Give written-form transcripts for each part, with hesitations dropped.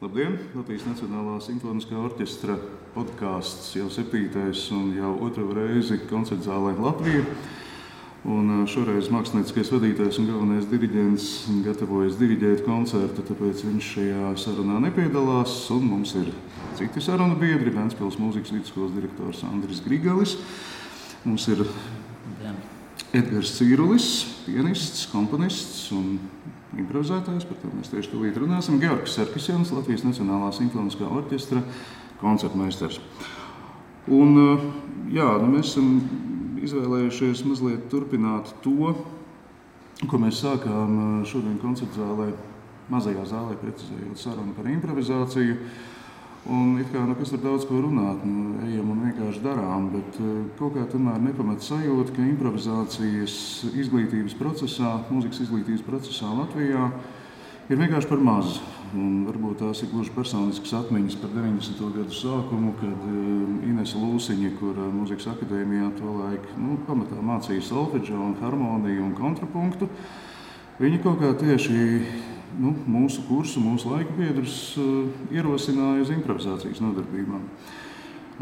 Labdien! Latvijas Nacionālā simfoniskā orķestra podkāsts jau 7. un jau 2. reizi koncertzālē Latvija. Un šoreiz mākslinieckais vadītājs un galvenais diriģents gatavojas diriģēt koncertu, tāpēc viņš šajā sarunā nepiedalās. Un mums ir citi sarunu biedri, Ventspils mūzikas vidusskolas direktors Andris Grigalis. Mums ir Edgars Cīrulis, pianists, komponists un improvizētājs, par to mēs tieši tūlīt runāsim. Georgs Sarkisjans, Latvijas Nacionālā simfoniskā orķestra koncertmeistars. Un mēs esam izvēlējušies mazliet turpināt to, ko mēs sākām šodien koncertzālē, mazajā zālē, precizējot sarunu par improvizāciju. Un kas var daudz ko runāt, ejam un vienkārši darām, bet kaut kā tomēr nepamat sajūta, ka improvizācijas izglītības procesā, mūzikas izglītības procesā Latvijā ir vienkārši par maz. Un varbūt tās ir gluži personiskas atmiņas par 90. gadu sākumu, kad Inese Lūsiņa, kur mūzikas akadēmijā tolaik pamatā mācīja solfedžo un harmoniju un kontrapunktu, viņa kaut kā tieši mūsu kursu, mūsu laika biedrus ierosināja uz improvizācijas nodarbībām.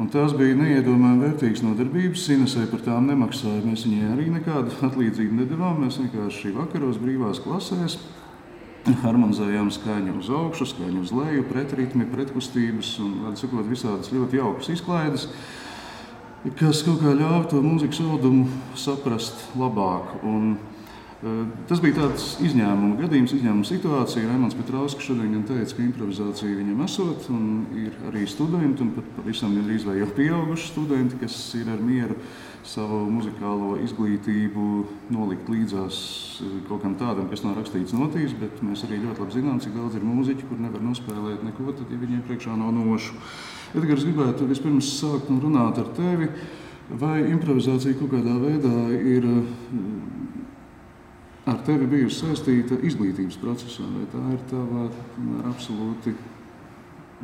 Un tās bija neiedomājami vērtīgas nodarbības. Inesei par tām nemaksāja. Mēs viņai arī nekādu atlīdzību nedavām. Mēs vienkārši vakaros brīvās klasēs harmonizējām skaņu uz augšu, skaņu uz leju, pretritmi, pretkustības un visādas ļoti jaukas izklaides, kas kaut kā ļāva to mūzikas audumu saprast labāk. Un tas bija tāds izņēmuma gadījums, izņēmuma situācija. Raimonds Petrauskas šodien gan teica, ka improvizācija viņam esot, un ir arī studenti, un pat pavisam gandrīz vai jau pieauguši studenti, kas ir ar mieru savu muzikālo izglītību nolikt līdzās kaut kam tādam, kas nav rakstīts notīs, bet mēs arī ļoti labi zinām, cik daudz ir mūziķi, kur nevar nospēlēt neko, tad, ja viņiem priekšā nav nošu. Edgars, gribētu vispirms sākt un runāt ar tevi, vai improvizācija kaut kādā veidā ir ar tevi bijusi saistīta izglītības procesā, vai tā ir tava absolūti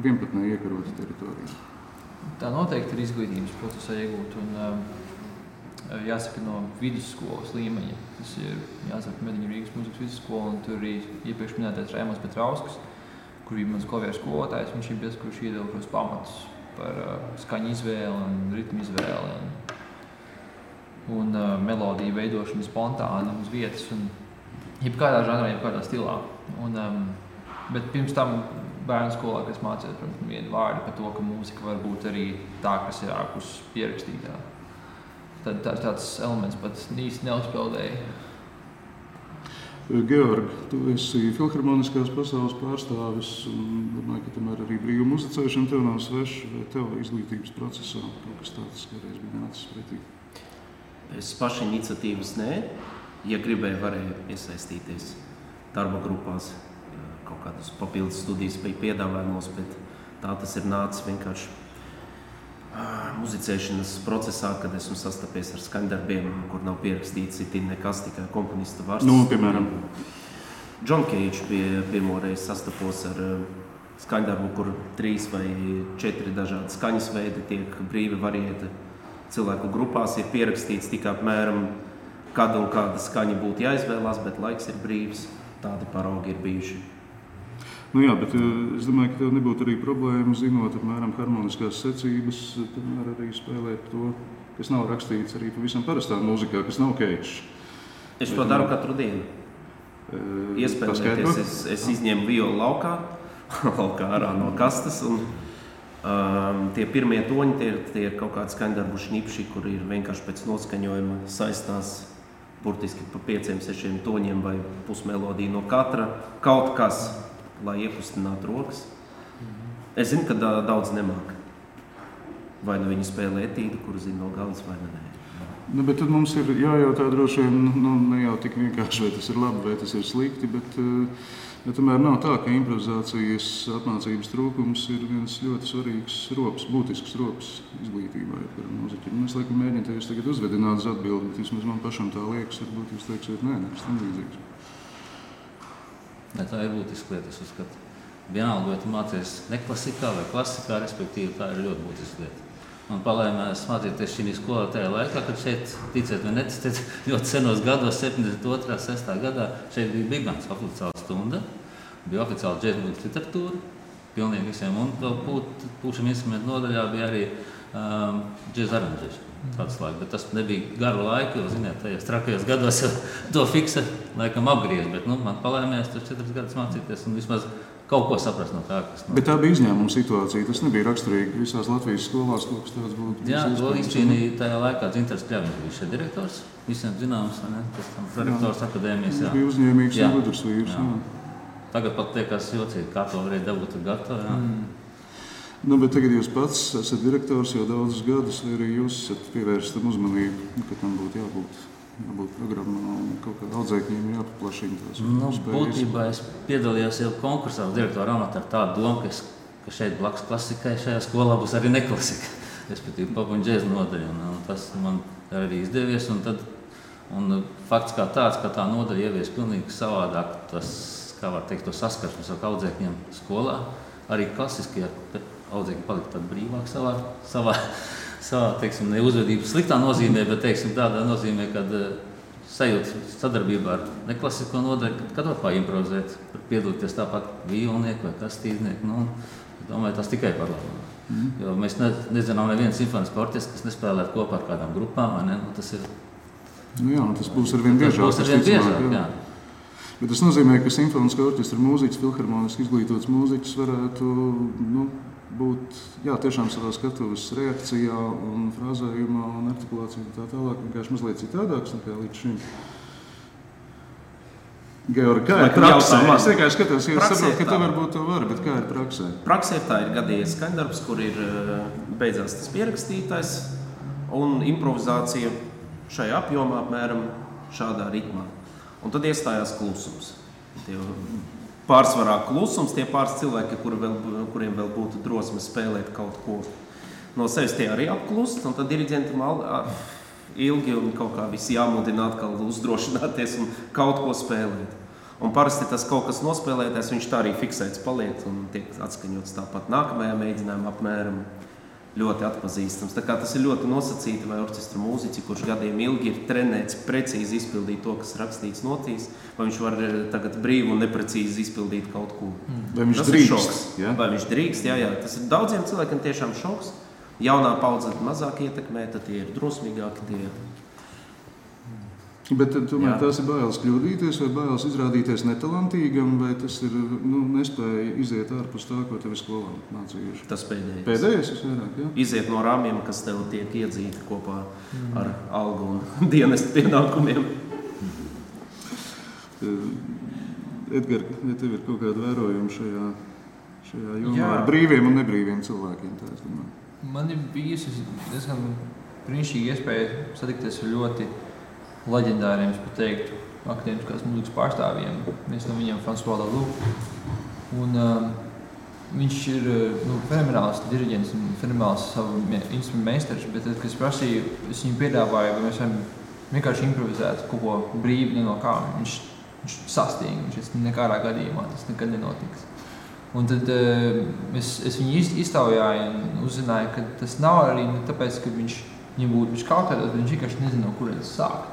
vienpatnē iekarota teritorija? Tā noteikti ir izglītības procesā iegūta, un jāsaka no vidusskolas līmeņa. Tas ir jāsaka Mediņu Rīgas mūzikas vidusskola, un tur arī iepriekš minētais Raimonds Petrauskas, kur bija mans klavieru skolotājs. Viņš ir tas, kurš iedeva šos pamatus par skaņu izvēli un ritmu izvēli. Un melodiju veidošanu spontāni uz vietas un jebkādā žanrā, jebkādā stilā. Bet pirms tam bērnu skolā, kas mācījās, protams, vienu vārdu par to, ka mūzika var būt arī tā, kas ir ārpus pierakstītā. Tad tāds elements pat īsti neuzpeldēja. Georg, tu esi filharmoniskās pasaules pārstāvis un domāju, ka tomēr arī brīva muzicēšana tev nav sveša, vai tev izglītības procesā kaut kas tāds kādreiz bija nācis pretī? Es paši iniciatīvas nē. Ja gribēju, varēju iesaistīties darba grupās, kaut kādas papildus studijas bija piedāvājumos, bet tā tas ir nācis vienkārši muzicēšanas procesā, kad esmu sastapies ar skaņdarbiem, kur nav pierakstīts itin nekas, tikai komponista vārds. Piemēram? John Cage bija pirmoreiz sastapos ar skaņdarbu, kur 3 vai 4 dažādi skaņas veidi tiek brīvi variēti. Cilvēku grupās ir pierakstīts tikai apmēram kāda un kāda skaņa būtu jāizvēlās, bet laiks ir brīvs. Tādi paraugi ir bijuši. Bet es domāju, ka tev nebūtu arī problēma, zinot apmēram harmoniskās secības, tomēr arī spēlēt to, kas nav rakstīts arī pavisam parastā mūzikā, kas nav Cage. Es to daru katru dienu. Iespēlēties, es izņemu violu laukā ārā no kastes, un tie pirmie toņi, tie ir kaut kādi skaņdarbu šnipši, kur ir vienkārši pēc noskaņojuma saistās burtiski pa 5-6 toņiem vai pusmelodiju no katra, kaut kas, lai iekustinātu rokas. Es zinu, ka daudz nemāk. Vai nu viņi spēlē etīdu, kuru zina no galvas, vai ne. Bet tad mums ir jājautā droši vien, ne jau tik vienkārši, vai tas ir labi, vai tas ir slikti, bet tomēr nav tā, ka improvizācijas apmācības trūkums ir viens ļoti svarīgs rops, būtisks rops izglītībā. Es laikam mēģinu tevis tagad uzvedināt uz atbildi, bet vismaz man pašam tā liekas, varbūt jūs teiksiet, nekas tam līdzīgs. Tā ir būtiska lieta, es uzskatu. Vienalga, vai tu mācies neklasikā vai klasikā, respektīvi, tā ir ļoti būtiska lieta. Man palēmēs mācīties šī skolā tajā laikā, kad šeit, ticēt vai neticēt, ļoti senos gados, 72. 6. gadā, šeit bija bigbands oficiāla stunda, bija oficiāla džēzmuzikas literatūra, pilnīgi visiem. Un vēl pūšam instrumentu nodaļā bija arī džēza aranžēšana. Tāds laiks, bet tas nebija garu laiku, jo, ziniet, tajos trakajos gados jau to fiksa laikam apgriež, bet, man palēmējās tur 4 gadus mācīties un vismaz kaut ko saprast no tā, kas Bet tā bija izņēmuma situācija, tas nebija raksturīgi visās Latvijas skolās, kaut kas tāds būtu. Jā, to izcīnīja tajā laikā Dzintars Kļaviņš bija šeit direktors, visiem zināms, ne? Tas tam prorektors akadēmijas, jā. Bija uzņēmīgs un gudrs vīrs, jā. Tagad pat liekas jocīgi, kā to varēja dabūt gatavu, jā. Bet tagad jūs pats esat direktors jau daudzus gadus, vai arī jūs esat pievērst tam uzmanību, ka tam būtu jābūt programmā un kaut kādā audzēkņiem jāpaplašina tās spējas? Būtībā es piedalījos jau konkursā direktora amatā ar tādu domu, ka šeit blakus klasikai šajā skolā būs arī neklasika, respektīvi pop un džēza nodaļa. Un tas man arī izdevies. Un fakts kā tāds, ka tā nodaļa ievies pilnīgi savādāk, tas, kā var teikt, to saskarsmes ar audzēkņiem skolā, arī klasiski audzēkņi palika tādi brīvāk savā teiksim, ne uzvedības sliktā nozīmē, bet teiksim, tādā nozīmē, kad sajūta sadarbībā ar neklasisko nodaļu, kad var improvizēt, piedalīties tāpat vīolnieku vai kastīznieku. Domāju, tas tikai par labu. Jo mēs nezinām nevienu simfonisku orķestru, kas nespēlētu kopā ar kādām grupām. Tas ir... tas būs arvien biežāk. Jā. Bet tas nozīmē, ka simfoniskā orķestra mūziķis, filharmoniski izglītots mūziķis varētu būt tiešām savā skatuves reakcijā un frāzējumā un artikulācijā un tā tālāk, vienkārši mazliet citādāks nekā līdz šim. Georgi, kā ir praksē? Es vienkārši skatos, jo es saprotu, ka tev varbūt to var, bet kā ir praksē? Praksē tā ir gadījies skaņdarbs, kur ir beidzās tas pierakstītais un improvizācija šajā apjomā apmēram šādā ritmā. Un tad iestājās klusums. Pārsvarā klusums, tie pāris cilvēki, kuriem vēl būtu drosme spēlēt kaut ko no sevis, tie arī apklust, un tad diriģentam ilgi un kaut kā visi jāmudina atkal uzdrošināties un kaut ko spēlēt. Un parasti tas kaut kas nospēlētais, viņš tā arī fiksēts paliek un tiek atskaņots tāpat nākamajā mēģinājumā apmēram ļoti atpazīstams. Tā kā tas ir ļoti nosacīti, vai orķestra mūziķi, kurš gadiem ilgi ir trenēts precīzi izpildīt to, kas rakstīts notīs, vai viņš var tagad brīvi un neprecīzi izpildīt kaut ko. Vai viņš drīkst? Vai viņš drīkst, jā. Tas ir daudziem cilvēkiem tiešām šoks. Jaunā paudze mazāk ietekmē, tad tie ir drosmīgāki. Bet tomēr tās ir bailes kļūdīties vai bailes izrādīties netalantīgam, vai tas ir nespēja iziet ārpus tā, ko tev ir skolā mācījuši? Tas pēdējais. Pēdējais visvairāk, jā? Iziet no rāmjiem, kas tev tiek iedzīti kopā ar algu un dienestu pienākumiem. Edgar, ja tev ir kaut kāda vērojuma šajā jomā ar brīviem un nebrīviem cilvēkiem, tā es domāju. Man ir bijusi diezgan brīnišķīga iespēja satikties ar ļoti leģendāriem, es pat teiktu, akadēmiskās mūzikas pārstāvjiem. Viens no viņiem François Laloux. Un viņš ir fenomenāls diriģents un fenomenāls savu instrumentu meistars, bet tad, kad es prasīju, es viņu piedāvāju, vai mēs varam vienkārši improvizēt kaut ko brīvi no kā. Viņš sastīja, viņš nekādā gadījumā tas nekad nenotiks. Un tad es viņu iztaujāju un uzzināju, ka tas nav arī tāpēc, ka viņam būtu kautētos, bet viņš vienkārši nezina, no kurienes sākt.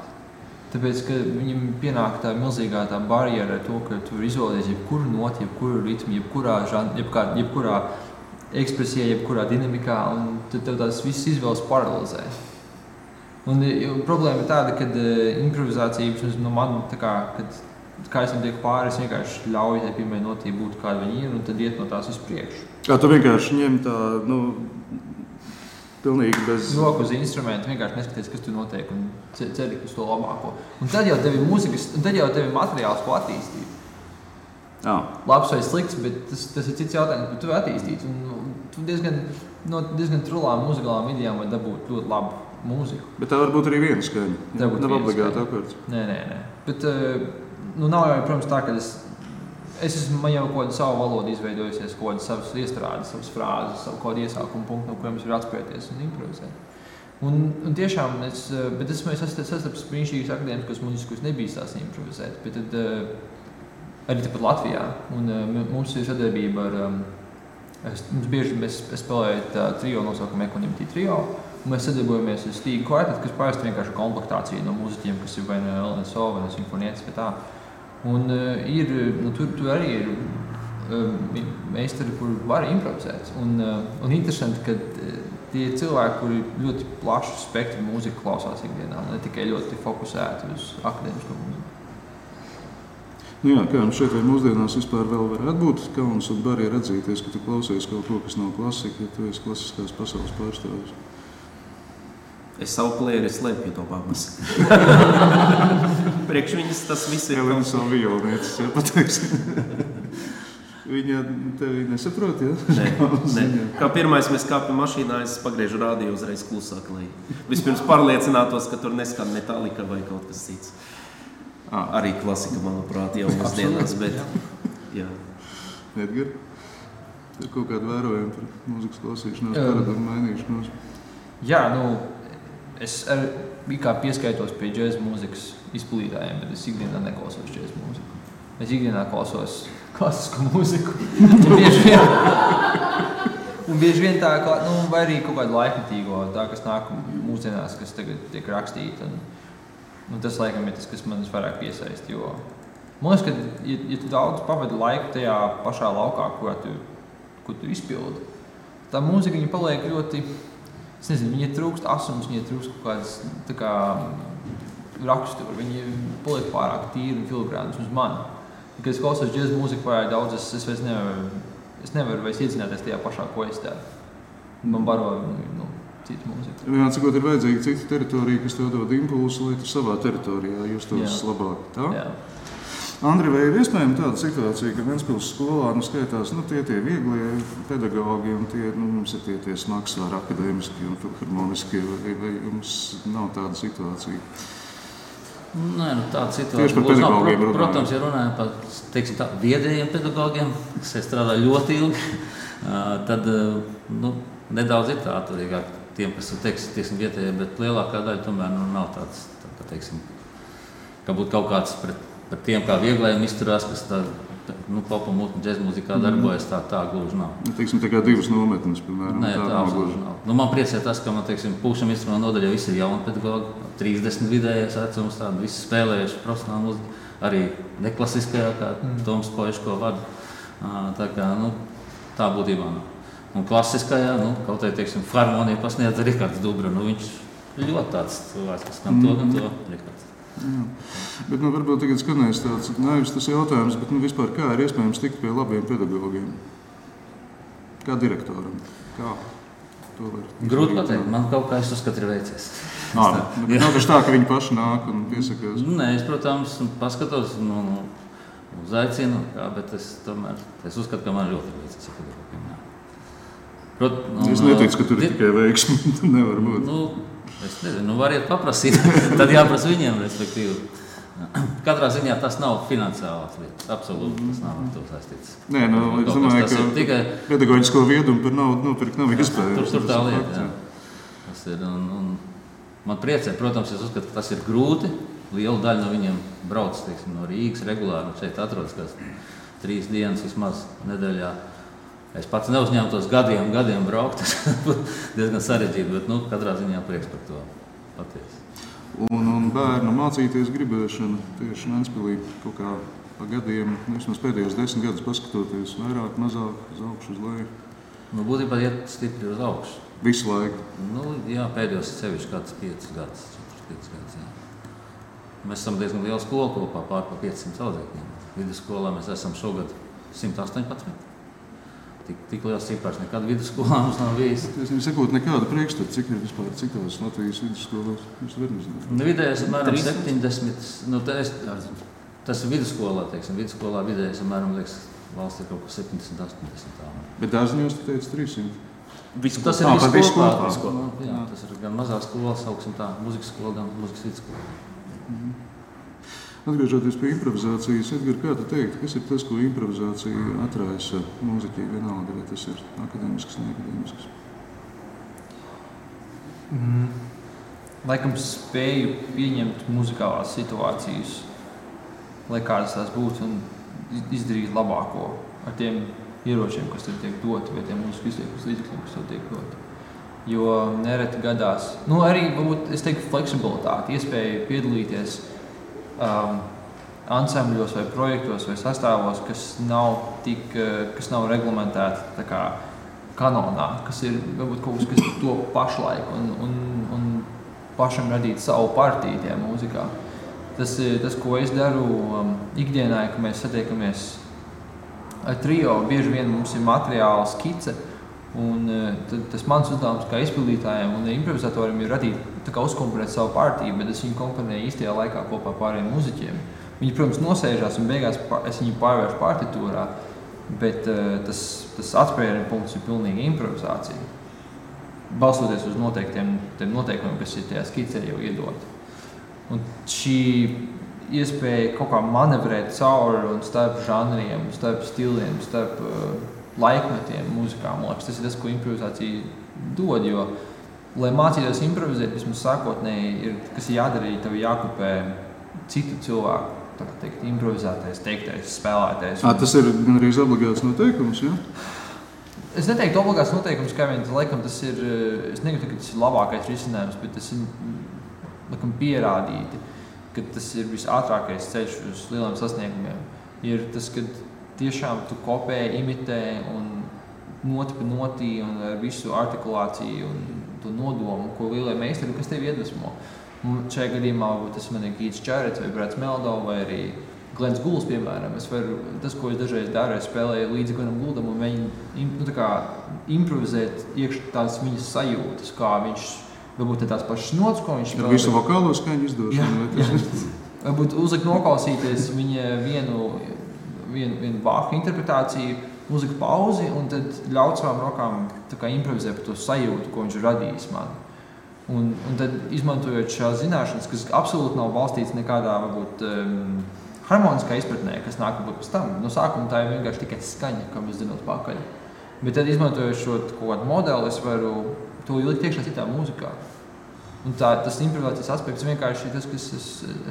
Tāpēc, ka viņam pienāk tā milzīgā tā barjera ar to, ka tu vari izvēlēties jebkuru noti, jebkuru ritmu, jebkurā ekspresijā, jebkurā dinamikā, un tad tev tās visas izvēles paralizē. Un problēma ir tāda, ka improvizācija no man, kā es tam tiek pāri, es vienkārši ļauju tai pirmai notī būt kāda viņa ir, un tad iet no tās uz priekšu. Kā tu vienkārši ņem tā, pilnīgi bez... Roku uz instrumentu, vienkārši neskaties, kas tur notiek, un ceri uz to labāko. Un tad jau tev ir mūzikas, un tad jau tev ir materiāls, ko attīstīt. Labs vai slikts, bet tas ir cits jautājums, bet tu attīstīt. Un tu diezgan trulām muzikālām idejām var dabūt ļoti labu mūziku. Bet tā var būt arī viena skaņa. Nav obligāti akords. Nē. Bet nav jau, protams, tā, ka man jau kaut kādu savu valodu izveidojusies, kaut kādas savas iestrādes, savas frāzes, savu kaut kādu iesākumu punktu, no kuriem es varu atspērties un improvizēt. Un tiešām, bet es sastapu brīnišķīgas akadēmiskos mūzikas, kuras nebija tās improvizēt, bet tad arī tepat Latvijā. Un mums ir sadarbība ar, mēs spēlējam trio nosaukumu Equanimity trio, un mēs sadarbojamies ar Stīgu kvartetu, kas parasti vienkārši komplektācija no mūziķiem, kas ir vai no LNSO, vai no simfonietis, vai tā. Un tur arī ir meistari, kuri var improvizēt. Un interesanti, ka tie cilvēki, kuri ļoti plašu spektru mūziku klausās ikdienā, ne tikai ļoti fokusēti uz akadēmisko mūziku. Nu jā, kā jums šeit vai mūsdienās vispār vēl varētu būt kauns un barjera atzīties, ka tu klausies kaut ko, kas nav klasika, ja tu esi klasiskās pasaules pārstāvis? Es savu plēri slēpju to babas. Priekš viņas tas viss ir. Elena savu violnieces, ja pateiksim. Viņa tevi nesaprot, ja? Nē. Kā pirmais mēs kāpjam mašīnā, es pagriežu rādio uzreiz klusāk, lai vispirms pārliecinātos, ka tur neskan Metallica vai kaut kas cits. Arī klasika, manuprāt, jau mūsdienās, bet jā. Edgar, ir kaut kāda vērojuma par mūzikas klausīšanās, paradumu mainīšanos? Jā, es arī kā pieskaitos pie džēza mūzikas izplītājiem, bet es ikdienā neklausos džēza mūziku. Es ikdienā klausos klasisku mūziku. Un bieži vien tā, vai arī kaut kādu laikmetīgo, tā, kas nāk mūsdienās, kas tagad tiek rakstīta. Un tas, laikam, ir tas, kas man vairāk piesaist, jo man liekas, ka, ja tu daudz pavadi laiku tajā pašā laukā, ko tu izpildi, tā mūzika, viņa paliek ļoti, es nezinu, viņa trūkst asums, viņa trūkst kaut kādas, tā kā, raksturu, viņa paliek pārāk tīri un filigrānas uz mani. Kad es klausos džēza mūziku pārāk daudz, es vairs nevaru vairs iedzināties tajā pašā, ko es tādu. Man baro, citu mūziku. Jā, cikot ir vajadzīga cita teritorija, kas tev dod impulsu, lai tu savā teritorijā justos labāk. Tā? Jā. Andri, vai ir iespējama tāda situācija, ka Ventspils skolā skaitās tie vieglie pedagogi un mums ir tie smagsvāri akadēmiski un filharmoniski, vai jums nav tāda situācija? Nē, tāda situācija būs nav. Protams, ja runājam par, teiksim tā, viedējiem pedagogiem, kas strādā ļoti ilgi, tad, nedaudz ir tā atturīgāk tiem, kas ir, teiksim, vietējie, bet lielākā daļa tomēr nav tāds, teiksim, ka būtu kaut kāds pret tiem kā vieglējiem izturās, kas tā, popa un džēza mūzikā darbojas, tā gluži nav. Teiksim, tā kā divas nometnes, piemēram. Nē, tā gluži nav. Man priecē tas, ka man, teiksim, pūkšam instrumentu nodaļā visi ir jauni pedagogi, 30 vidējais vecums, tādi visi spēlējuši profesionāli mūziku, arī neklasiskajā, kā Toms Poiško vada. Tā kā, tā būtībā nav. Un klasiskajā, kaut arī, teiksim, harmoniju pasniedz Rikards Dubra, viņš ļoti tāds cilvēks, kas gan to Rikards. Jā. Bet varbūt tagad skanēs tāds naivs tas jautājums, bet vispār kā ir iespējams tikt pie labiem pedagogiem? Kā direktoram? Kā to var? Grūti pateikt, man kaut kā es uzskatu ir veicies. Nav taču tā, ka viņi paši nāk un piesakās? Nē, es, protams, paskatos, uzaicinu, bet es uzskatu, ka man ļoti veicies ar pedagogiem. Es neticu, ka tur ir tikai veiksmi, nevar būt. Es nezinu, variet paprasīt, tad jāprasa viņiem, respektīvi. Katrā ziņā tas nav finansiālās lietas, absolūti tas nav ar to saistīts. Nē, es domāju, ka tikai pedagoģisko viedumu par naudu nopirkt nav iespējams. Tur tā lieta, jā. Tas ir, un man priecē, protams, es uzskatu, ka tas ir grūti. Liela daļa no viņiem brauc, teiksim, no Rīgas regulāri, šeit atrodas kāds 3 dienas vismaz nedēļā. Es pats neuzņēmtos gadiem braukt, tas būtu diezgan sarežģīti, bet katrā ziņā prieks par to patiesi. Un bērnu mācīties gribēšana tieši Ventspilī kaut kā pa gadiem, vismaz pēdējos 10 gadus paskatoties, vairāk, mazāk, uz augšu, uz leju? Būtībā iet stipri uz augšu. Visu laiku? Jā, pēdējos sevišķi kāds 5 gadus, 4-5 gadus, jā. Mēs esam diezgan liela skola kopā, pār pa 500 audzēkņiem. Vidusskolā mēs esam šogad 118. Tik liels cipars nekad vidusskolā mums nav bijis. Es nesakot nekādu priekšstatu, cik ir vispār citos Latvijas vidusskolās. Jūs varat nezināt? Vidējais apmēram 70. Tas ir vidusskolā, teiksim. Vidusskolā vidējais apmēram, valsts ir kaut ko 70-80 tā. Bet dārziņos tu teici 300? Tas ir visu kopā. Jā, tas ir gan mazā skola, sauksim tā, muzikas skola, gan muzikas vidusskola. Atgriežoties pie improvizācijas, Edgar, kā tu teikt, kas ir tas, ko improvizācija atraisa mūziķī vienalga, vai tas ir akadēmisks, neakadēmisks? Laikam spēju pieņemt muzikālās situācijas, lai kādas tās būtu, un izdarīt labāko ar tiem ieročiem, kas tev tiek doti, vai tiem mūzikas izliekas līdzekļiem, kas tev tiek doti. Jo nereti gadās, arī, varbūt, es teiktu, fleksibilitāti, iespēja piedalīties ansambļos vai projektos vai sastāvos, kas nav reglamentēti tā kā kanonā, kas ir varbūt kaut kas, kas to pašlaik un pašam radīt savu partiju tajā mūzikā. Tas, ko es daru ikdienā, ka mēs satiekamies ar trio, bieži vien mums ir materiāla skice, un tas mans uzdevums kā izpildītājiem un improvizatorim ir radīt, tā kā uzkomponēt savu partiju, bet es viņu komponēju īstajā laikā kopā pārējiem muziķiem. Viņi, protams, nosēžās un beigās es viņu pārvēršu partitūrā, bet tas atspērienu punkts ir pilnīgi improvizācija. Balstoties uz noteiktiem noteikumiem, kas ir tajā skicē jau iedoti. Un šī iespēja kaut kā manevrēt cauri un starp žanriem, starp stiliem, starp laikmetiem mūzikā, man liekas, tas ir tas, ko improvizācija dod, jo, lai mācītos improvizēt, vismaz sākotnēji, kas ir jādara, tev jākopē citu cilvēku, tā kā teikt, improvizētais, teiktais, spēlētais. Tas ir gan arī obligāts noteikums, jā? Es neteiktu obligāts noteikums, kā vien, laikam tas ir, es negribu, ka tas ir labākais risinājums, bet tas ir, laikam, pierādīti, ka tas ir visātrākais ceļš uz lieliem sasniegumiem. Ir tas, kad tiešām tu kopē, imitē un noti pa notī un ar visu artikulāciju un to nodomu, ko lielie meistari, kas tevi iedvesmo. Šajā gadījumā tas man ir Keits Jarretts vai Brats Meldo vai arī Glens Gulls, piemēram. Tas, ko es dažreiz daru, es spēlēju līdzi Glenam Gouldam un viņi improvizēt iekš tās viņas sajūtas, kā viņš varbūt tās pašas nots, ko viņš spēlē. Ar visu vokālo skaņu izdošanu. Jā. Varbūt uzlikt noklausīties viņa vienu vārku interpretāciju, uzlikt pauzi un tad ļaut savām rokām tā kā improvizēt par to sajūtu, ko viņš ir radījis man. Un tad izmantojot šās zināšanas, kas absolūti nav balstīts nekādā varbūt harmoniskā izpratnē, kas nāk varbūt pēc tam. No sākuma tā ir vienkārši tikai skaņa, kā mēs zinot pakaļ. Bet tad izmantojot šo kaut kādu modeli, es varu to ielikt iekšā citā mūzikā. Un tas improvizācijas aspekts vienkārši ir tas, kas es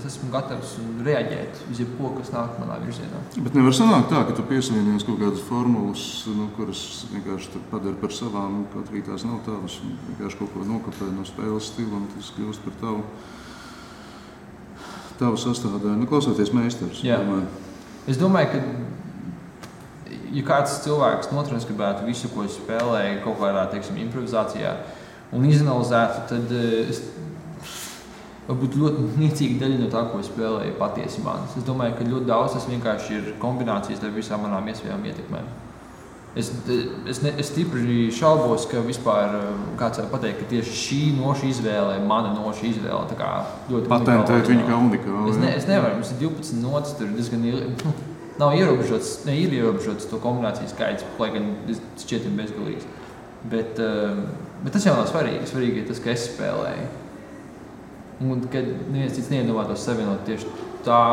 esmu gatavs reaģēt uz jebko, kas nāk manā virzienā. Bet nevar sanākt tā, ka tu piesavienies kaut kādas formulas, kuras vienkārši padara par savām, kaut arī tās nav tavas, un vienkārši kaut ko nokopē no spēles stila, un tas kļūst par tavu sastāvdaļu. Klausoties meistars. Jā. Es domāju, ka ja kāds cilvēks notranskribētu visu, ko es spēlēju kaut kādā, teiksim, improvizācijā, un izanalizētu, tad varbūt ļoti niecīga daļa no tā, ko es spēlēju, patiesi manis. Es domāju, ka ļoti daudz tas vienkārši ir kombinācijas ar visām manām iespējām ietekmēm. Es stipri šaubos, ka vispār kāds var pateikt, ka tieši šī noša izvēle, mana noša izvēle, tā kā ļoti patentēt viņu kā unikālu. Es nevaru, mums ir 12 notas, tur diezgan nav ierobežots, ir ierobežots to kombināciju skaits, lai gan šķietim bezgalīgs. Bet tas jau nav svarīgi. Svarīgi ir tas, ka es spēlēju. Un kad neviens cits neiedomātos savienot tieši tā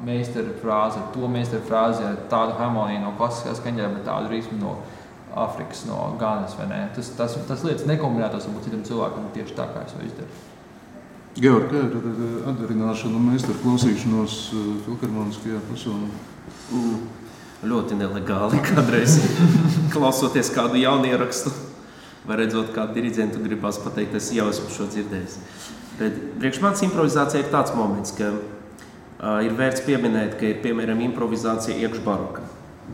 meistara frāzi ar to meistara frāzi, ar tādu harmoniju no klasiskā skaņā, bet tādu ritmu no Afrikas, no Ganas, vai ne? Tas lietas nekombinētos varbūt citam cilvēkam tieši tā, kā es to izdaru. Georg, kā ir atdarināšana un meistaru klausīšanos filharmoniskajā pasaulē? Ļoti nelegāli kādreiz klausoties kādu jaunierakstu. Vai redzot, kādu diriģentu gribās pateikt, es jau esmu šo dzirdējis. Bet priekš manis improvizācija ir tāds moments, ka ir vērts pieminēt, ka ir, piemēram, improvizācija iekš baroka.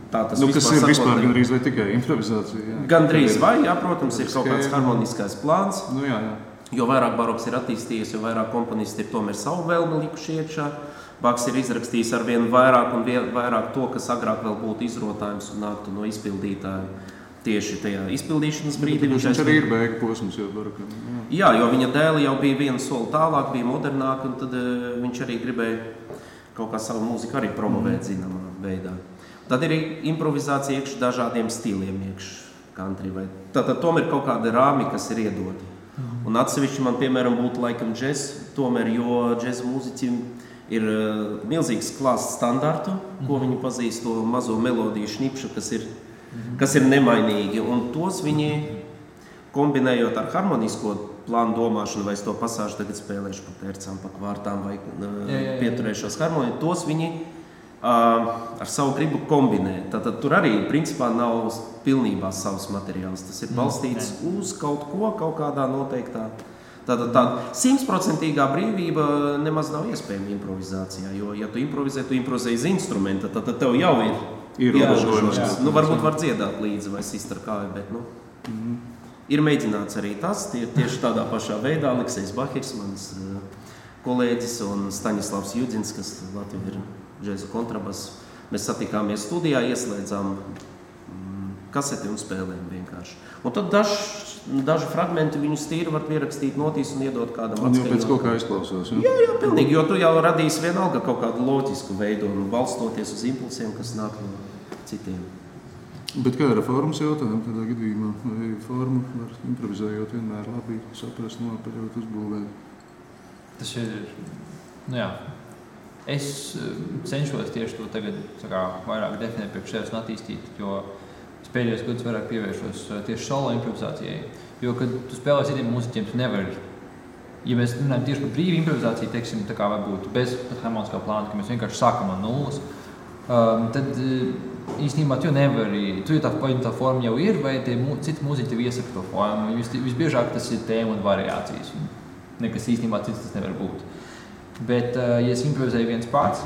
Kas ir vispār gandrīz vai tikai improvizācija? Jā. Gandrīz vai, jā, protams, ir kaut kāds harmoniskais plāns. Jā. Jo vairāk baroks ir attīstījies, jo vairāk komponisti ir tomēr savu vēlmi likuši iekšā. Baks ir izrakstījis ar vien vairāk un vairāk to, kas agrāk vēl būtu izrotājums un nāktu no izpildītāja. Tieši tajā izpildīšanas brīdī. Viņš arī ir beigu posms jau barokam. Jā, jo viņa dēli jau bija vienu soli tālāk, bija modernāk, un tad viņš arī gribēja kaut kā savu mūziku arī promovēt zināmā veidā. Tad ir improvizācija iekš dažādiem stiliem iekš country. Tātad tomēr kaut kāda rāmi, kas ir iedota. Un atsevišķi man, piemēram, būtu laikam džez, tomēr, jo džez mūziķim ir milzīgs klāsts standartu, ko viņi pazīst, to mazo melodiju šnipšu, kas ir nemainīgi, un tos viņi, kombinējot ar harmonisko plānu domāšanu, vai es to pasāžu tagad spēlēšu pa tercām, pa kvārtām, vai pieturēšos harmoniju, tos viņi ar savu gribu kombinē. Tātad tur arī, principā, nav pilnībā savs materiāls. Tas ir balstīts uz kaut ko, kaut kādā noteiktā Tā 100% brīvība nemaz nav iespējama improvizācijā, jo, ja tu improvizē uz instrumenta, tad tev jau ir ierobežojums. Varbūt var dziedāt līdzi vai sist ar kāju, bet ir mēģināts arī tas, tieši tādā pašā veidā. Aleksejs Bahirs, mans kolēģis, un Staņislavs Judzins, kas Latvijā ir džēza kontrabass. Mēs satikāmies studijā, ieslēdzām kaseti un spēlējām vienkārši. Un tad daži fragmenti viņus tīri var pierakstīt notīs un iedot kādam atskaņot. Un jau pēc kaut kā izklausās, ja? Jā, pilnīgi, jo tu jau radīsi vienalga kaut kādu loģisku veidu un balstoties uz impulsiem, kas nāk no citiem. Bet kā ir formas jautājumi tādā gadījumā? Vai formu var improvizējot vienmēr labi saprast, nopaļot, uzbūvēt? Tas ir, es cenšos tieši to tagad vairāk definēt priekš sevis un attīstīt, jo es pēdējos gadus vairāk pievēršos tieši solo improvizācijai, jo, kad tu spēlē citiem mūziķiem, tu nevari, ja mēs runājam tieši par brīvu improvizāciju, teiksim, tā kā varbūt bez harmoniskā plāna, ka mēs vienkārši sākam no nulles, tad īstenībā tu nevari, tu jau tā forma jau ir, vai tie citi mūziķi tev iesaka to formu, visbiežāk tas ir tēma un variācijas, nekas īstenībā cits tas nevar būt. Bet, ja es improvizēju viens pats,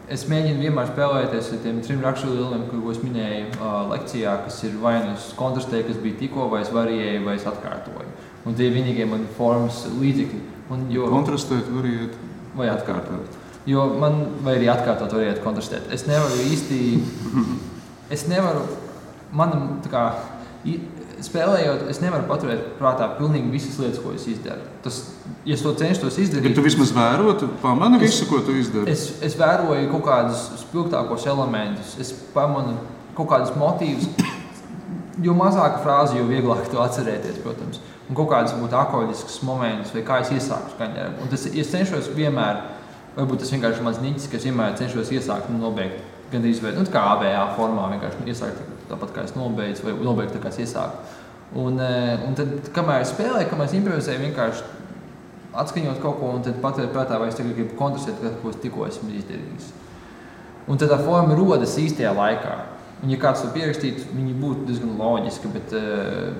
es mēģinu vienmēr spēlēties ar tiem 3 raksturieliem, ko es minēju lekcijā, kas ir vai nu kontrastē, kas bija tikko, vai es variēju, vai es atkārtoju. Un tie vienīgie man formas līdzekļi. Kontrastēt, variēt? Vai atkārtot. Jo vai arī atkārtot, variēt, kontrastēt. Es nevaru, spēlējot, es nevaru paturēt prātā pilnīgi visas lietas, ko es izdaru. Ja es to cenšos izdarīt... Bet tu vismaz vērotu, pamani visu, ko tu izdari? Es vēroju kaut kādus spilgtākos elementus, es pamanu kaut kādus motīvus, jo mazāka frāze, jo vieglāk to atcerēties, protams. Un kaut kādas būtu akoļiskas momentus, vai kā es iesāku skaņdarbu. Un es cenšos vienmēr, varbūt tas vienkārši mans niķis, ka es vienmēr cenšos iesākt un nobeigt. Gandrīz kā ABA formā, vienkārši iesākt tāpat kā es nobeidzu, vai nobeigt tā kā es iesāku. Un tad, kamēr es spēlēju, kamēr es improvizēju, vienkārši atskaņot kaut ko un tad paturēt prātā, vai es tagad gribu kontrastēt, ko es tikko esmu izdarījis. Un tad tā forma rodas īstajā laikā. Un ja kāds to pierakstītu, viņi būtu diezgan loģiski, bet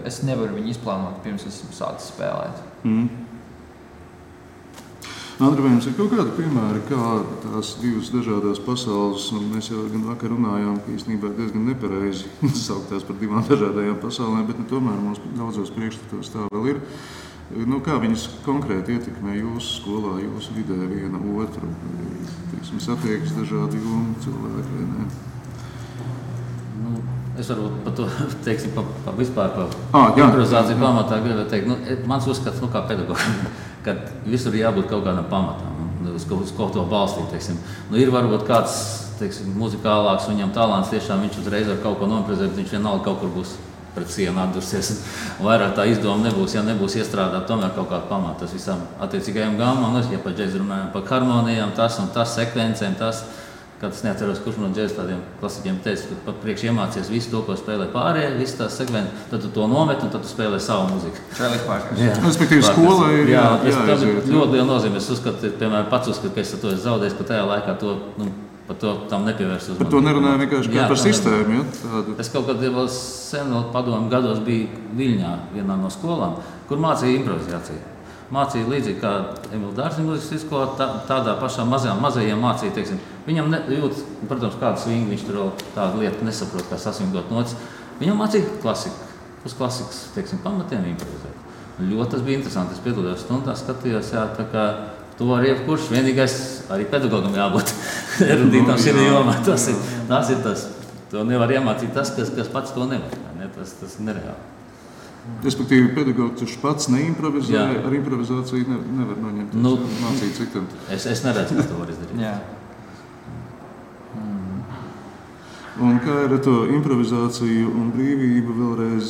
es nevaru viņu izplānot, pirms esmu sācis spēlēt. Andri, vai jums ir kaut kādi piemēri, kā tās divas dažādās pasaules, un mēs jau gan vakar runājām, ka īstenībā diezgan nepareizi sauktās par divām dažādajām pasaulēm, bet tomēr mums daudzos priekšstatos tā vēl ir. Kā viņas konkrēti ietekmē jūsu skolā, jūsu vidē viena otru? Satiekas dažādi jomu cilvēki, vai ne? Es varu par to, teiksim, vispār par improvizāciju pamatā gribētu teikt. Mans uzskats, kā pedagogam, kad visur ir jābūt kaut kādam pamatam, uz ko to balstīt, teiksim. Ir varbūt kāds, teiksim, muzikālāks, viņam talants tiešām viņš uzreiz var kaut ko nomprovizēt, bet viņš vienalga kaut kur būs pret sienu atdursies. Vairāk tā izdoma nebūs, ja nebūs iestrādāt tomēr kaut kādu pamatu. Tas visam attiecīgajam gamam, ja par džēzu runājam, par harmonijām, tas un tas sekvencēm, tas, kad es neatceros, kurš no džēzu tādiem klasiķiem teica, ka pat priekš iemācies visu to, ko spēlē pārējie, visu tās sekvences, tad tu to nomet un tad tu spēlē savu mūziku. Respektīvi, skola ir jāaiziet. Ļoti liela nozīme. Es uzskatu, piemēram, pats uzskatu, ka es to esmu zaudējis, ka tajā laikā to, par to tam nepievērst uzmanību. Par to nerunāju vienkārši kā par sistēmu, tādu. Es kaut kad vēl sen padomu gados biju Viļņā vienā no skolām, kur mācīja improvizāciju. Mācīja līdzīgi kā Emīla Dārziņa mūzikas skolā, tādā pašā mazajiem mācīja, teiksim. Viņam jūt, protams, kādu svingu, viņš tur vēl tādu lietu nesaprot, kā sasvingdot notis. Viņam mācīja klasiku, uz klasikas, teiksim, pamatiem improvizēt. Ļoti tas bija interesanti, es piedalījos stundās, skatījos, tā kā to var jebkurš, vienīgais arī pedagogam jābūt erudītam šī jomā. Tas ir tas, to nevar iemācīt tas, kas pats to nevar, ne? Tas ir nereāli. Respektīvi, pedagogs, kurš pats neimprovizē, ar improvizāciju nevar noņemt, mācīt citam. Es neredzu, ka to var izdarīt. Jā. Un kā ir ar to improvizāciju un brīvību vēlreiz?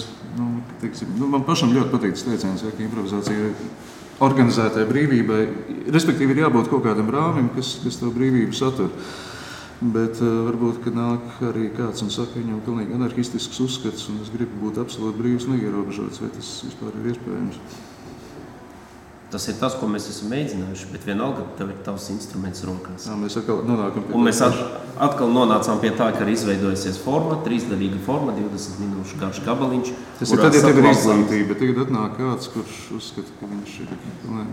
Man pašam ļoti patīk tas teiciens, ka improvizācija ir organizētai brīvībai. Respektīvi, ir jābūt kaut kādam rāmim, kas to brīvību satur. Bet varbūt, ka nāk arī kāds un saka, viņam pilnīgi anarhistisks uzskats, un es gribu būt absolūti brīvs un neierobežots, vai tas vispār ir iespējams? Tas ir tas, ko mēs esam mēģinājuši, bet vienalga tev ir tavs instruments rokās. Jā, mēs atkal nonākam pie Un mēs atkal nonācām pie tā, ka ir izveidojusies forma, 3-daļīga forma, 20 minūšu garš gabaliņš. Tas ir tad, ja tev ir izglītība, tagad atnāk kāds, kurš uzskata, ka viņš ir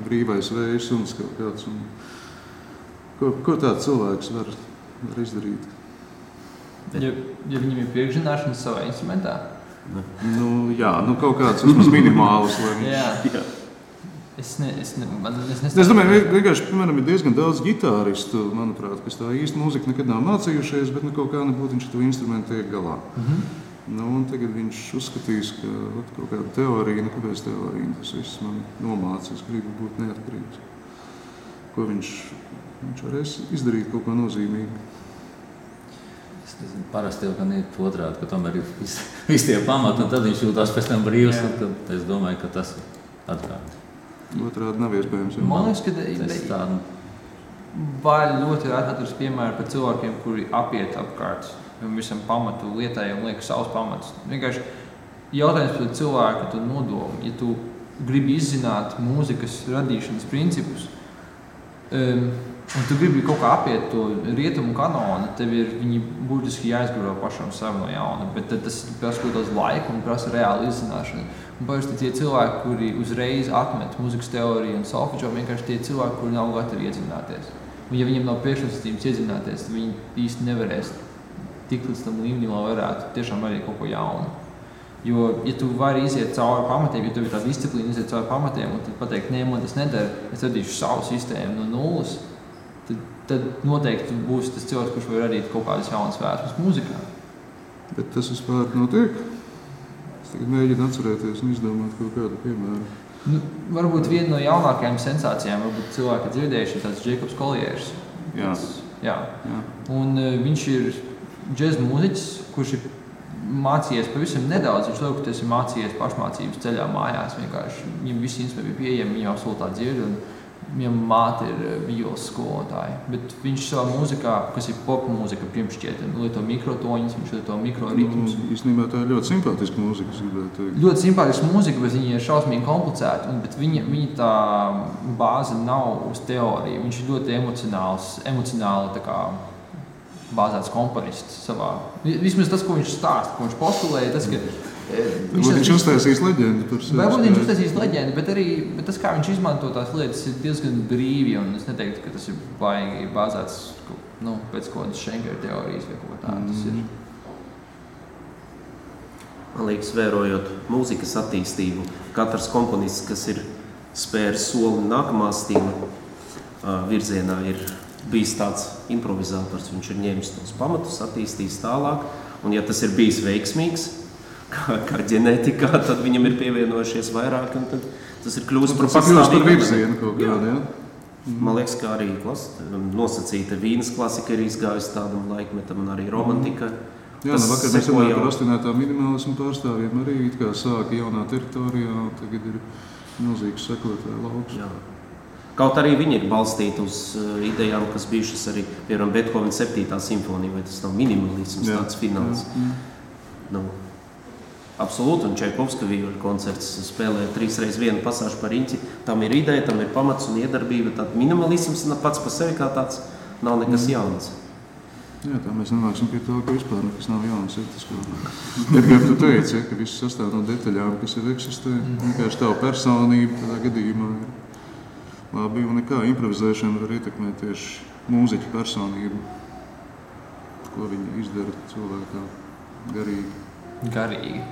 brīvais vējs un kaut kāds. Un ko tāds cilvēks var izdarīt? Ja viņam ir priekšzināšanas savā instrumentā? Jā, kaut kāds vismaz minimāls. Jā. Es domāju, vienkārši, piemēram, ir diezgan daudz gitāristu, manuprāt, kas tā īsti mūziku nekad nav mācījušies, bet kaut kā nebūtu viņš to instrumentu tiek galā. Un tagad viņš uzskatīs, ka kaut kāda teorija, kāpēc teorija, tas viss man nomāca, es gribu būt neatkarīgs. Ko viņš varēs izdarīt kaut ko nozīmīgu. Parasti jau gan ir otrādi, ka tomēr ir visi tie pamati, un tad viņš jūtās pēc tam brīvs, un tad es domāju, ka tas ir atkārt. Otrādi nav iespējams. Man liekas, ka vai ļoti atveras piemēri par cilvēkiem, kuri apiet apkārt visam pamatu lietai un liek savus pamatus. Vienkārši jautājums par cilvēku tu nodomu. Ja tu gribi izzināt mūzikas radīšanas principus, un tu gribi kaut kā apiet to rietumu kanonu, tev ir viņi būtiski jāizgaro pašam savu no jauna, bet tad tas prasa kaut daudz laika un prasa reāli izzināšanu. Un parasti tie cilvēki, kuri uzreiz atmet mūzikas teoriju un solfedžo, vienkārši tie cilvēki, kuri nav gatavi iedzināties. Un ja viņiem nav priekšnosacījums iedzināties, tad viņi īsti nevarēs tikt līdz tam līmenim, lai varētu tiešām arī kaut ko jaunu. Jo, ja tu vari iziet cauri pamatiem, ja tev ir tā disciplīna iziet cauri pamatiem un tad pateikt, nē, man tas nedara, es radīšu savu sistēmu no nulles, tad noteikti būs tas cilvēks, kurš var radīt kaut kādas jaunas vēsmas mūzikā. Bet tas vispār notiek? Es tagad mēģinu atcerēties un izdomāt kaut kādu piemēru. Varbūt viena no jaunākajām sensācijām, varbūt cilvēki dzirdējuši, ir tāds Jacobs Colliers. Jā. Un viņš ir džez mūziķis, kurš ir mācījies pavisam nedaudz. Viņš liekas, ka tas ir mācījies pašmācības ceļā mājās. Vienkārši viņam visi instrumenti bija pieejami, viņam absolūtā dzird, un viņam māte ir violas skolotāja. Bet viņš savā mūzikā, kas ir pop mūzika, pirmšķiet, lieto mikrotoņus, viņš lieto mikroritmus. Īstenībā tā ir ļoti simpātiska mūzika. Ļoti simpātiska mūzika, bet viņa ir šausmīgi komplicēta, bet viņa tā bāze nav uz teoriju. Viņš ir ļoti emocionāli tā kā bāzēts komponists savā. Vismaz tas, ko viņš stāsta, ko viņš postulēja, tas, ka viņš uztaisīs leģendu par sevi. Varbūt viņš uztaisīs leģendu, bet tas, kā viņš izmanto tās lietas, ir diezgan brīvi, un es neteiktu, ka tas ir baigi bāzēts pēc kaut kādas Schenkera teorijas vai kaut tā. Tas ir. Man liekas, vērojot mūzikas attīstību, katrs komponists, kas ir spēris soli nākamā stila virzienā, ir bijis tāds improvizators. Viņš ir ņēmis tos pamatus, attīstījis tālāk, un ja tas ir bijis veiksmīgs, kā ģenētikā, tad viņam ir pievienojušies vairāk, un tad tas ir kļūst par pastāvīgu virzienu kaut kādu, jā. Man liekas, ka arī nosacīta Vīnas klasika ir izgājusi tādam laikmetam, un arī romantika. Jā, vakar mēs runājām par astinētā minimālismu pārstāvjiem, arī it kā sāka jaunā teritorijā, un tagad ir milzīgs sekotāju lauks. Jā. Kaut arī viņi ir balstīti uz idejām, kas bijušas arī, piemēram, Beethovena 7. simfonija, vai tas nav minimalisms, tāds fināls. Absolūti, un Čaikovska vīļu koncerts spēlē 3x1 pasāžu par riņķi. Tam ir ideja, tam ir pamats un iedarbība. Tad minimalisms pats par sevi kā tāds nav nekas jauns. Jā, tā mēs nonāksim pie tā, ka vispār nekas nav jauns. Tas, kā tu teici, ka viss sastāv no detaļām, kas jau eksistē. Vienkārši tava personība tādā gadījumā ir labi, un nekā improvizēšana var ietekmēt tieši mūziķa personību, ko viņi izdara cilvēkā garīgi.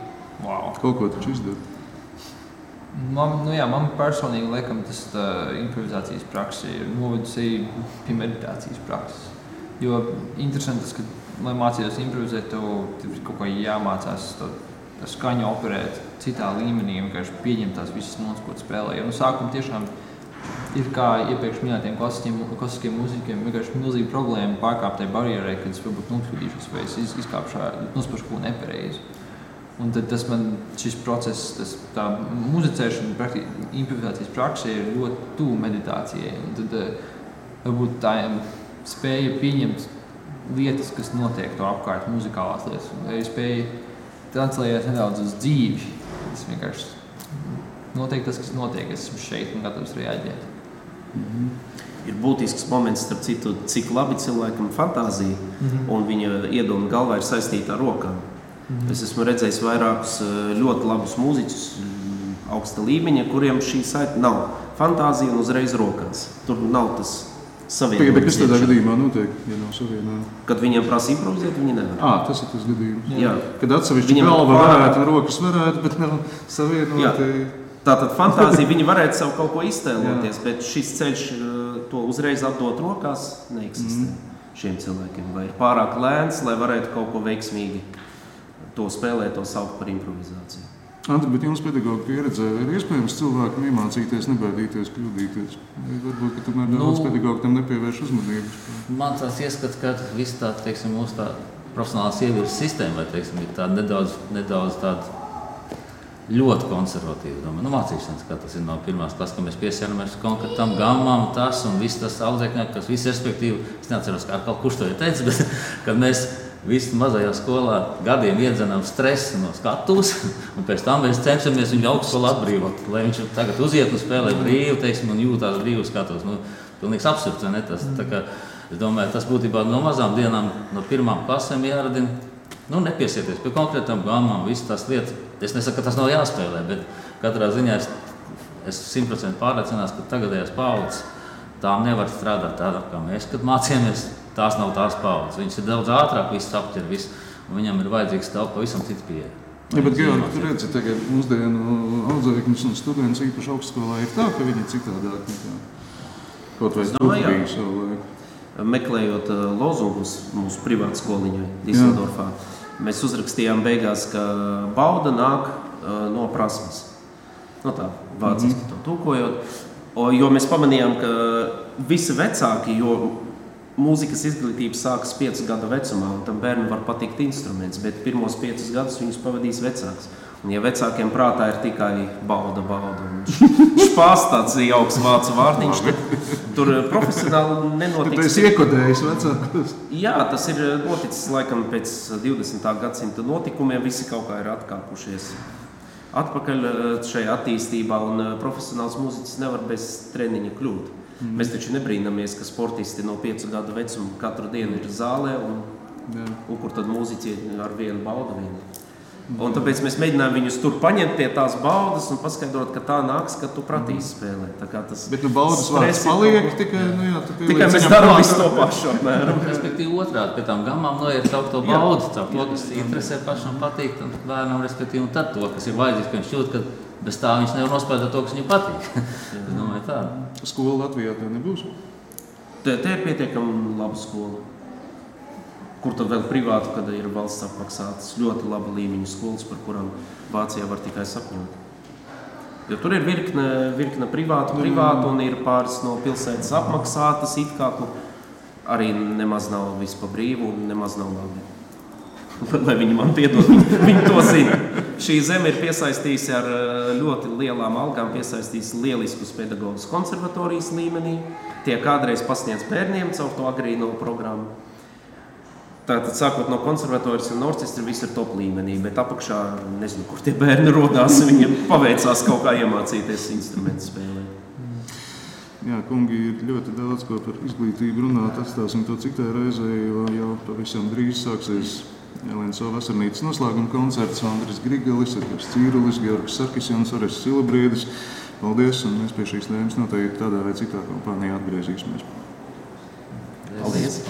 Wow. Kaut ko taču izdara. Man personīgi laikam tas improvizācijas praksa ir novedusi pie meditācijas prakses. Jo interesanti tas, ka, lai mācītos improvizēt, tev kaut kā jāmācās to skaņu operēt citā līmenī, vienkārši pieņemt tās visas notas, ko spēlē. Jo no sākuma tiešām ir kā iepriekš minētiem klasiskiem mūziķiem vienkārši milzīga problēma pārkāpt tai barjerai, kad es varbūt nokļūdīšos vai es izkāpšu nospašu ko nepareizi. Un tad šis process, tā muzicēšana, improvizācijas praksa ir ļoti tuvu meditācijai. Un tad varbūt tā spēja pieņemt lietas, kas notiek to apkārt, muzikālās lietas. Vai spēja translējāt nedaudz uz dzīvi. Tas vienkārši notiek tas, kas notiek, es esmu šeit un gatavs reaģēt. Ir būtisks moments, starp citu, cik labi cilvēkam fantāzija un viņa iedoma galvā ir saistīta ar rokām. Es esmu redzējis vairākus ļoti labus mūziķus augsta līmeņa, kuriem šī saita nav fantāzija un uzreiz rokās. Tur nav tas savienojums. Bet kas tādā gadījumā notiek, ja nav savienojums? Kad viņiem prasa improvizēt, viņi nevar. Tas ir tas gadījums. Jā. Kad atsevišķi galva varētu un rokas varētu, bet nav savienoti. Tātad fantāzija, viņi varētu sev kaut ko iztēloties, bet šis ceļš to uzreiz atdot rokās neeksistē šiem cilvēkiem. Vai ir pārāk lēns, lai varētu kaut ko veiksmīgi to spēlēt, to saukt par improvizāciju. Andri, bet jums pedagoga pieredzē, vai ir iespējams cilvēkam iemācīties, nebaidīties, kļūdīties? Vai varbūt, ka tomēr daudz pedagogu tam nepievērš uzmanības? Man tāds ieskats, ka viss tā, teiksim, mūsu tā profesionālās ievirzes sistēma, vai, teiksim, ir tā nedaudz tāda ļoti konservatīva. Mācīšanas, kā tas ir no pirmās klases, ka mēs piesēramies konkrētam gammām, tas un viss tas audzēkņāk, kas viss respektīvi, es neatceros, kā kaut kurš to ir teicis, bet kad mēs visi mazajā skolā gadiem iedzenām stresu no skatuves, un pēc tam mēs cenšamies viņu augstskolu atbrīvot, lai viņš tagad uziet un spēlē brīvi, teiksim, un jūtās brīvi skatos. Pilnīgs absurds, vai ne? Tas, tā kā, es domāju, tas būtībā no mazām dienām, no pirmām klasēm jāradina, nepiesieties pie konkrētām gammām, visas tās lietas. Es nesaku, ka tas nav jāspēlē, bet katrā ziņā es 100% pārliecināts, ka tagadējās paudzes tām nevar strādāt tādā, kā mēs, kad mācījāmies. Tās nav tās paudzes. Viņas ir daudz ātrāk, viss aptver, un viņam ir vajadzīgs pavisam cits pieeja. Ja, bet, Georgi, tu redzi, tagad mūsdienu audzēkņus un students īpaši augstskolā ir tā, ka viņi ir citādāk nekā kaut vai bija savu laiku. Meklējot lozungus mūsu privātskoliņai Diseldorfā, mēs uzrakstījām beigās, ka bauda nāk no prasmes. Tā, vāciski to tūkojot. Jo mēs pamanījām, ka visi vecāki, jo mūzikas izglītība sākas 5 gadu vecumā, un tam bērnam var patikt instruments, bet pirmos 5 gadus viņus pavadīs vecāks. Un ja vecākiem prātā ir tikai bauda, un špās tāds jauks vācu vārdiņš, tad tur profesionāli nenotiks. Tu esi iekodējis vecākus? Jā, tas ir noticis laikam pēc 20. gadsimta notikumiem, visi kaut kā ir atkāpušies atpakaļ šajā attīstībā, un profesionāls mūziķis nevar bez treniņa kļūt. Mēs taču nebrīnamies, ka sportisti no 5 gadu vecuma katru dienu ir zālē, un kur tad mūziķi ar vienu baudu vienu. Un tāpēc mēs mēģinājām viņus tur paņemt pie tās baudas un paskaidrot, ka tā nāks, ka tu pratīsi spēlēt. Bet baudas vārds paliek, tikai mēs darām visu to pašu apmēram. Respektīvi otrādi, pie tām gammām noiet caur to baudu, caur to, kas interesē pašam patīk, un bērnam, respektīvi, un tad to, kas ir vajadzīgs, ka viņš jūt, ka bez tā viņš nevar nospēlēt to, kas viņam patīk. Es domāju tā. Skola Latvijā tā nebūs? Te ir pietiekami laba skola. Kur tad vēl privātu, kad ir valsts apmaksātas ļoti laba līmeņa skolas, par kurām Vācijā var tikai sapņot. Jo tur ir virkne privātu, un ir pāris no pilsētas apmaksātas, it kā arī nemaz nav viss pa brīvu un nemaz nav labi. Lai viņi man piedod, viņi to zina. Šī zeme ir piesaistījusi ar ļoti lielām algām, piesaistījusi lieliskus pedagogus konservatorijas līmenī. Tie kādreiz pasniedz bērniem caur to agrīno programmu. Tātad sākot no konservatorijas un orķestra viss ir top līmenī, bet apakšā, nezinu, kur tie bērni rodās, viņiem paveicās kaut kā iemācīties instrumentu spēlēt. Jā, kungi, ir ļoti daudz ko par izglītību runāt, atstāsim to citai reizei, jo jau pavisam drīz sāksies Elenso vasarnīcas noslēguma koncerts, Andris Grigelis, Edgars Cīrulis, Georgs Sarkisjans, Orests Silabriedis. Paldies, un mēs pie šīs tēmas noteikti tādā vai citā kompānijā atgriezīsimies. Paldies!